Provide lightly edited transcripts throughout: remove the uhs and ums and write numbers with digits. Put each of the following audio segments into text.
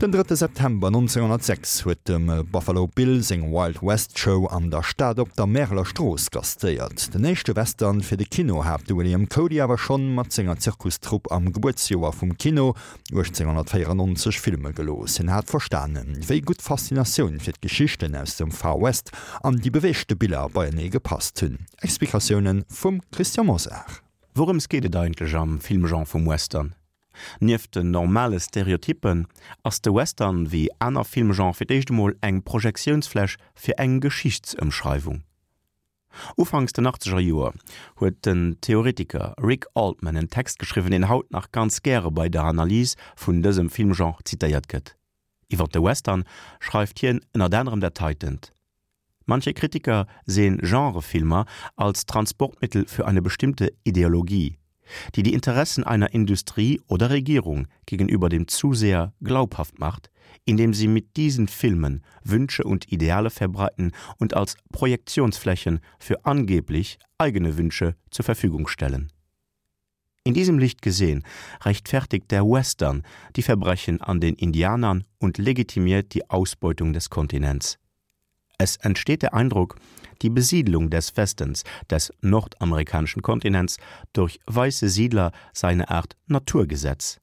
Den drëtte September 1906 huet dem Buffalo Bill seng Wild West Show an der Stad op der Märeler Strooss gastéiert. Den éischte Western fir de Kino hat de William Cody awer schonn mat senger Zirkustrupp am Gebuertsjoer vum Kino 1894 filme gelooss. Hien hat verstanen, wéi gutt d'Faszinatioun fir d'Geschichten aus dem Far West an déi beweegte Biller beienee gepasst hunn. Explikatioune vum Christian Mosar. Wourëms geet et eigentlech am Filmgenre vum Western? Nieft den normale Stereotyppen ass de Western, wéi aner Filmgenre, fir d'éischt emol eng Projektiounsfläch fir eng Geschichtsëmschreiwung. Ufanks den achtzeger Joer huet den Theoretiker Rick Altman en Text geschriwwen, deen haut nach ganz gäre bei der Analys vun dësem Filmgenre zitéiert gëtt. Iwwer de Western schreift hien ënnert anerem dat heitent, Manche Kritiker sehen Genrefilmer als Transportmittel für eine bestimmte Ideologie, die die Interessen einer Industrie oder Regierung gegenüber dem Zuseher glaubhaft macht, indem sie mit diesen Filmen Wünsche und Ideale verbreiten und als Projektionsflächen für angeblich eigene Wünsche zur Verfügung stellen. In diesem Licht gesehen rechtfertigt der Western die Verbrechen an den Indianern und legitimiert die Ausbeutung des Kontinents. Es entsteht der Eindruck, die Besiedlung des Westens, des nordamerikanischen Kontinents, durch weiße Siedler sei eine Art Naturgesetz.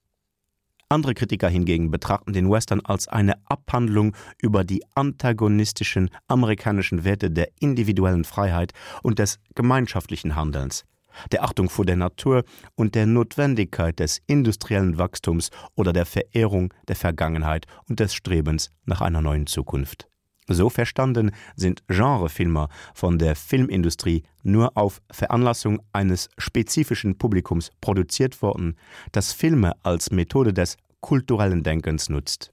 Andere Kritiker hingegen betrachten den Western als eine Abhandlung über die antagonistischen amerikanischen Werte der individuellen Freiheit und des gemeinschaftlichen Handelns, der Achtung vor der Natur und der Notwendigkeit des industriellen Wachstums oder der Verehrung der Vergangenheit und des Strebens nach einer neuen Zukunft. So verstanden sind Genrefilmer von der Filmindustrie nur auf Veranlassung eines spezifischen Publikums produziert worden, das Filme als Methode des kulturellen Denkens nutzt.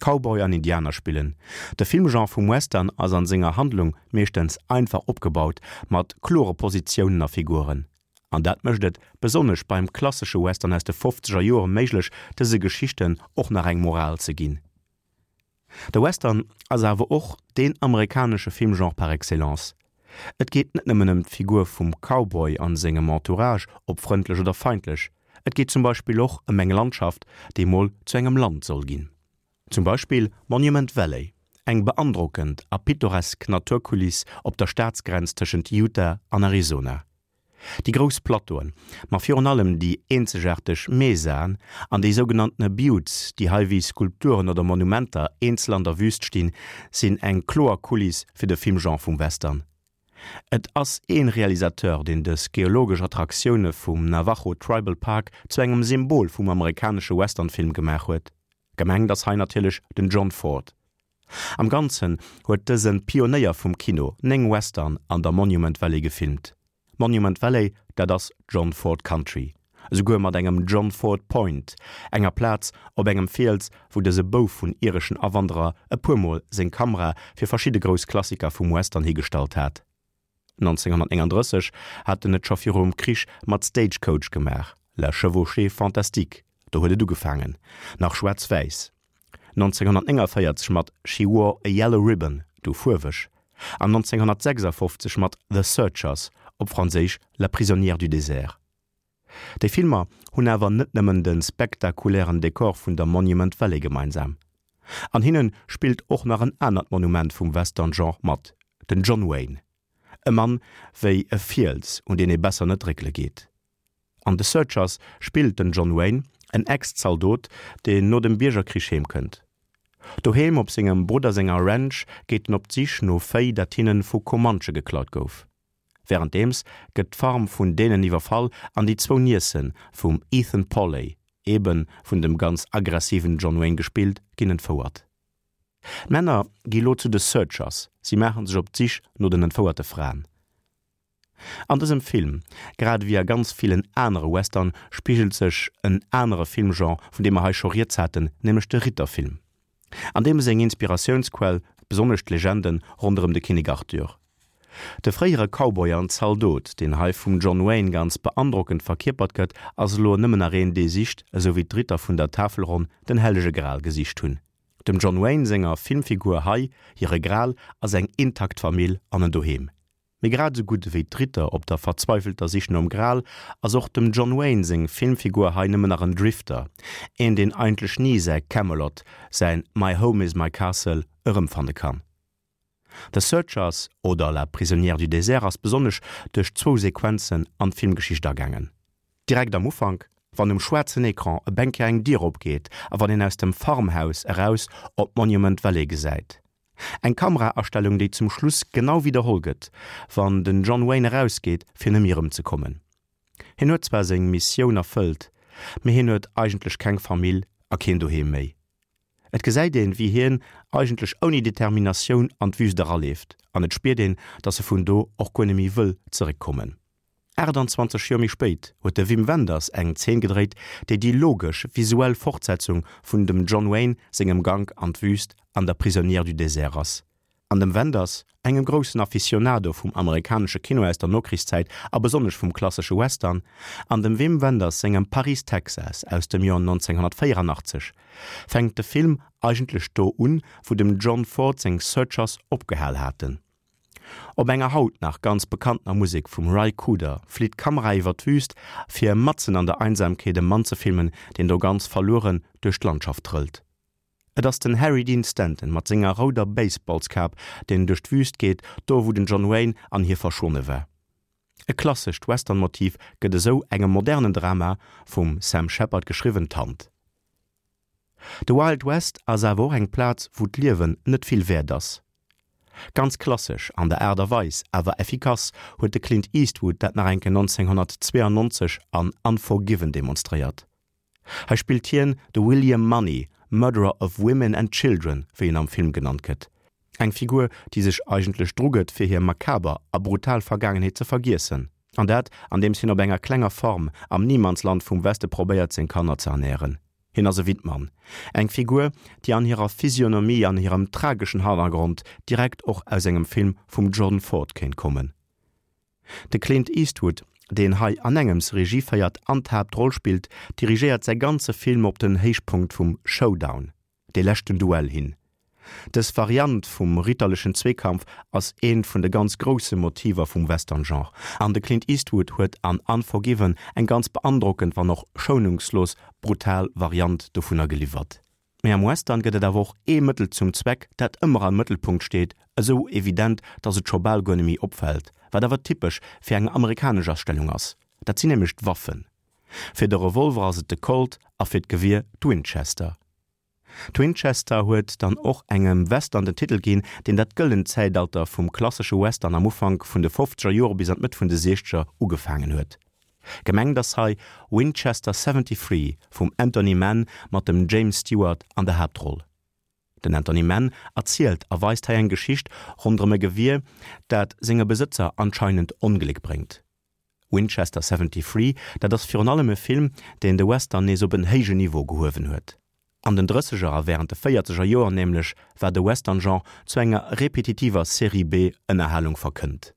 Cowboy an Indianer spillen. De Filmgenre vum Western ass an senger Handlung meeschtens einfach opgebaut, mat klore Positiounen a Figuren. An dat mécht et, besonnesch beim klassesche Western aus de fofzeger Joere méiglech, dëse Geschichten och nach eng Moral ze ginn. De Western ass awer och deen amerikanesche Filmgenre par excellence. Et geet net nëmmen ëm d'Figur vum Cowboy an sengem Entourage, ob frëndlech oder feindlech, et geet zum Beispill och ëm eng Landschaft, déi mol zu engem Land soll ginn. Zum Beispill Monument Valley, eng beandrockend a pittoresk Naturkuliss op der Staatsgrenz tëschent Utah an Arizona. Déi grouss Plateauen, ma virun allem déi eenzegaarteg Mesaen an déi sougenanntene Buttes, déi hei wéi Skulpturen oder Monumenter eenzel an der Wüst stinn, sinn eng kloer Kuliss fir de Filmgenre vum Western. Et ass ee Realisateur, deen dës geologesch Attraktioune vum Navajo Tribal Park zu engem Symbol vum amerikanesche Westernfilm gemaach huet. Gemengt ass hei natierlech den John Ford. Am Ganzen huet dëse Pionéier vum Kino 9 Western an der Monument Valley gefilmt. Monument Valley, dat ass John Ford Country, esouguer mat engem John Ford Point, enger Plaz op engem Fiels, wou dëse Bouf vun ireschen Awanderer e puer Mol seng Kamera fir verschidde grouss Klassiker vum Western higestallt hat. 1939 hat en et scho virum Krich mat Stagecoach gemaach, La chevauchée fantastique, do huet et ugefaangen, nach schwaarz-wäiss. 1949 mat She Wore a Yellow Ribbon, du fuerweg, an 1956 mat The Searchers, op Franséisch La prisonnière du désert. Déi Filmer hunn awer net nëmmen de spektakulären Dekor vun der Monument Valley gemeinsam. An hinne spillt och nach en anert Monument vum Western-Genre mat, den John Wayne. E Mann wéi e Fiels, un deen ee besser net réckele geet. An The Searchers spillt den John Wayne en Ex-Zaldot, deen no dem Biergerkrich heem kënnt. Doheem op sengem Brudder senger Ranch geet en op d'Sich no Véi, dat hinne vu Comanche geklaut gouf. Wärenddeems gëtt d'Farm vun deenen iwwerfall an déi zwou Niece vum Ethan Pawley, ebe vun dem ganz aggressiven John Wayne gespillt, ginn entfouert. D'Männer gi lo zu de Searchers, si maache sech op d'Sich no den entfouerte Fraen. An dësem Film, grad ewéi a ganz villen anere Western, spigelt sech en anere Filmgenre, vun deem mer hei scho rieds haten, nämlech de Ritterfilm. An deem seng Inspiratiounsquell besonnesch d'Legende ronderëm de Kinnek Arthur. De fréiere Cowboy an Zaldot, deen hei vum John Wayne ganz beandrockend verkierpert gëtt, ass elo nëmmen nach een, dee sicht, esou wéi d'Ritter vun der Tafelronn den hellege Gral gesicht hunn. Dem John Wayne senger Filmfigur hei hire Gral ass eng intakt Famill an en Doheem. Mee grad esou gutt ewéi d'Ritter op der verzweifelter Sich nom Gral, ass och dem John Wayne seng Filmfigur hei nëmmen nach en Drifter, een deen eigentlech ni säi Camelot, säin My home is my castle erëmfanne kann. The Searchers oder La prisonnière du désert ass besonnesch duerch zwou Sequenzen an d'Filmgeschicht agaangen. Direkt am Ufank, wann um schwaarzen Ecran e Bänker eng Dier opgeet a wann een aus dem Farmhaus eraus op d'Monument Valley gesäit. Eng Kameraastellung, déi zum Schluss genau widderholl gëtt, wann den John Wayne erausgeet, fir nëmme erëmzekommen. Hien huet zwar seng Missioun erfëllt, mee hien huet eigentlech keng Famill a keen Doheem méi. Et gesäit een, wéi hien eigentlech ouni Determinatioun an d'Wüst eraleeft, an et spiert een, dass e vun do och guer neméi wëll zeréckkommen. 28 Joer méi spéit huet de Wim Wenders eng Zeen gedréit, déi déi logesch visuell Fortsetzung vun dem John Wayne sengem Gank an d'Wüst an der Prisonnière du désert ass. An dem Wenders, engem groussen Aficionado vum amerikanesche Kino aus der Nokrichszäit a besonnesch vum klassesche Western, an dem Wim Wenders sengem Paris, Texas aus dem Joer 1984, fänkt de Film eigentlech do un, wou dem John Ford seng Searchers opgehal haten. Op enger haut nach ganz bekanntener Musek vum Ry Cooder flitt d'Kamera iwwer d'Wüst, fir matzen an der Einsamkeet e Mann ze filmen, deen do ganz verlueren duerch d'Landschaft trëllt. Et ass den Harry Dean Stanton mat senger rouder Baseballskap, deen duerch d'Wüst geet, do wou den John Wayne an hie verschwonne war. E klassescht Western-Motiv gëtt esou engem modernen Drama, vum Sam Shepard geschriwwen, d'Hand. De Wild West ass awer och eng Plaz, wou d'Liewen net vill wäert ass. Ganz klassesch an der Aart a Weis, awer effikass, huet de Clint Eastwood dat nach eng Kéier 1992 an Unforgiven demonstréiert. Hei spillt hien de William Munny, Murderer of Women and Children, wéi en am Film genannt gëtt. Eng Figur, déi sech eigentlech drugëtt, fir hir makaber a brutal Vergaangenheet ze vergiessen. An dat, andeems hien op enger klenger Farm am Niemandsland vum Weste probéiert, seng Kanner ze ernären. Hien ass e Wittmann. Eng Figur, déi an hirer Physionomie an hirem trageschen Hannergrond direkt och aus engem Film vum John Ford kéint kommen. De Clint Eastwood, deen hei anengems Regie féiert an d'Haaptroll spillt, dirigéiert säi ganze Film op den Héichpunkt vum Showdown, dee leschten Duell, hin. Dës Variant vum ritterlechen Zweekampf ass eent vun de ganz grousse Motiver vum Western-Genre, an de Clint Eastwood huet an Unforgiven eng ganz beandrockend, wann och schounungslos brutal Variant dovunner geliwwert. Mee am Western gëtt et awer och ee Mëttel zum Zweck, dat ëmmer am Mëttelpunkt steet, esou evident, datt et scho bal guer neméi opfält, wat awer typesch fir eng amerikanesch Astellung ass, dat sinn nämlech d'Waffen. Fir de Revolver ass et de Colt a fir d'Gewier d'Winchester. D'Winchester huet dann och engem Western den Titel ginn, deen dat gëllent Zäitalter vum klassesche Western am Ufank vun de fofzeger Jore bis an d'Mëtt vun de siechzeger ugefaangen huet. Gemengt ass hei Winchester 73 vum Anthony Mann mat dem James Stewart an der Haaptroll. Den Anthony Mann erzielt a weist hei eng Geschicht ronderëm e Gewier, dat senge Besëtzer anscheinend Ongléck bréngt. Winchester 73, dat ass virun allem e Film, deen de Western nees op en héijen Niveau gehuewen huet. An den Drësseger a wärend de Véierzeger Joer nämlech war de Western-Genre zu enger repetitiver Serie-B-Ënnerhalung verkënnt.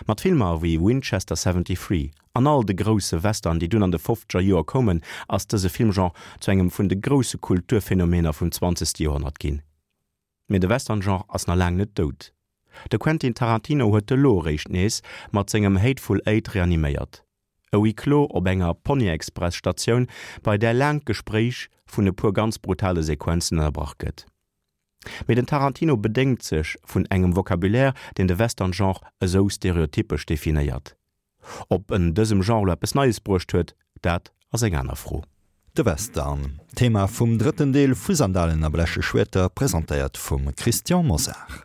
Mat Filmer wéi Winchester 73 an all de grousse Western, déi dunn an de fofzeger Joer koumen, ass dëse Filmgenre zu engem vun de grousse Kulturphänomener vum zwanzegste Joerhonnert ginn. Mee de Western-Genre ass nach laang net dout. De Quentin Tarantino huet elo eréischt nees mat sengem Hateful Eight reaniméiert. E Huis clos op enger Ponyexpress-Statioun, bei där laang d'Gespréich vun e puer ganz brutale Sequenzen ënnerbrach gëtt. Mee den Tarantino bedéngt sech vun engem Vocabulaire, deen de Western-Genre esou stereotypesch definéiert. Ob en dësem Genre lo eppes Neies bruecht huet, dat ass eng aner Fro. De Western, Thema vum drëtten Deel vu Sandalen a bleche Schwierter, presentéiert vum Christian Mosar.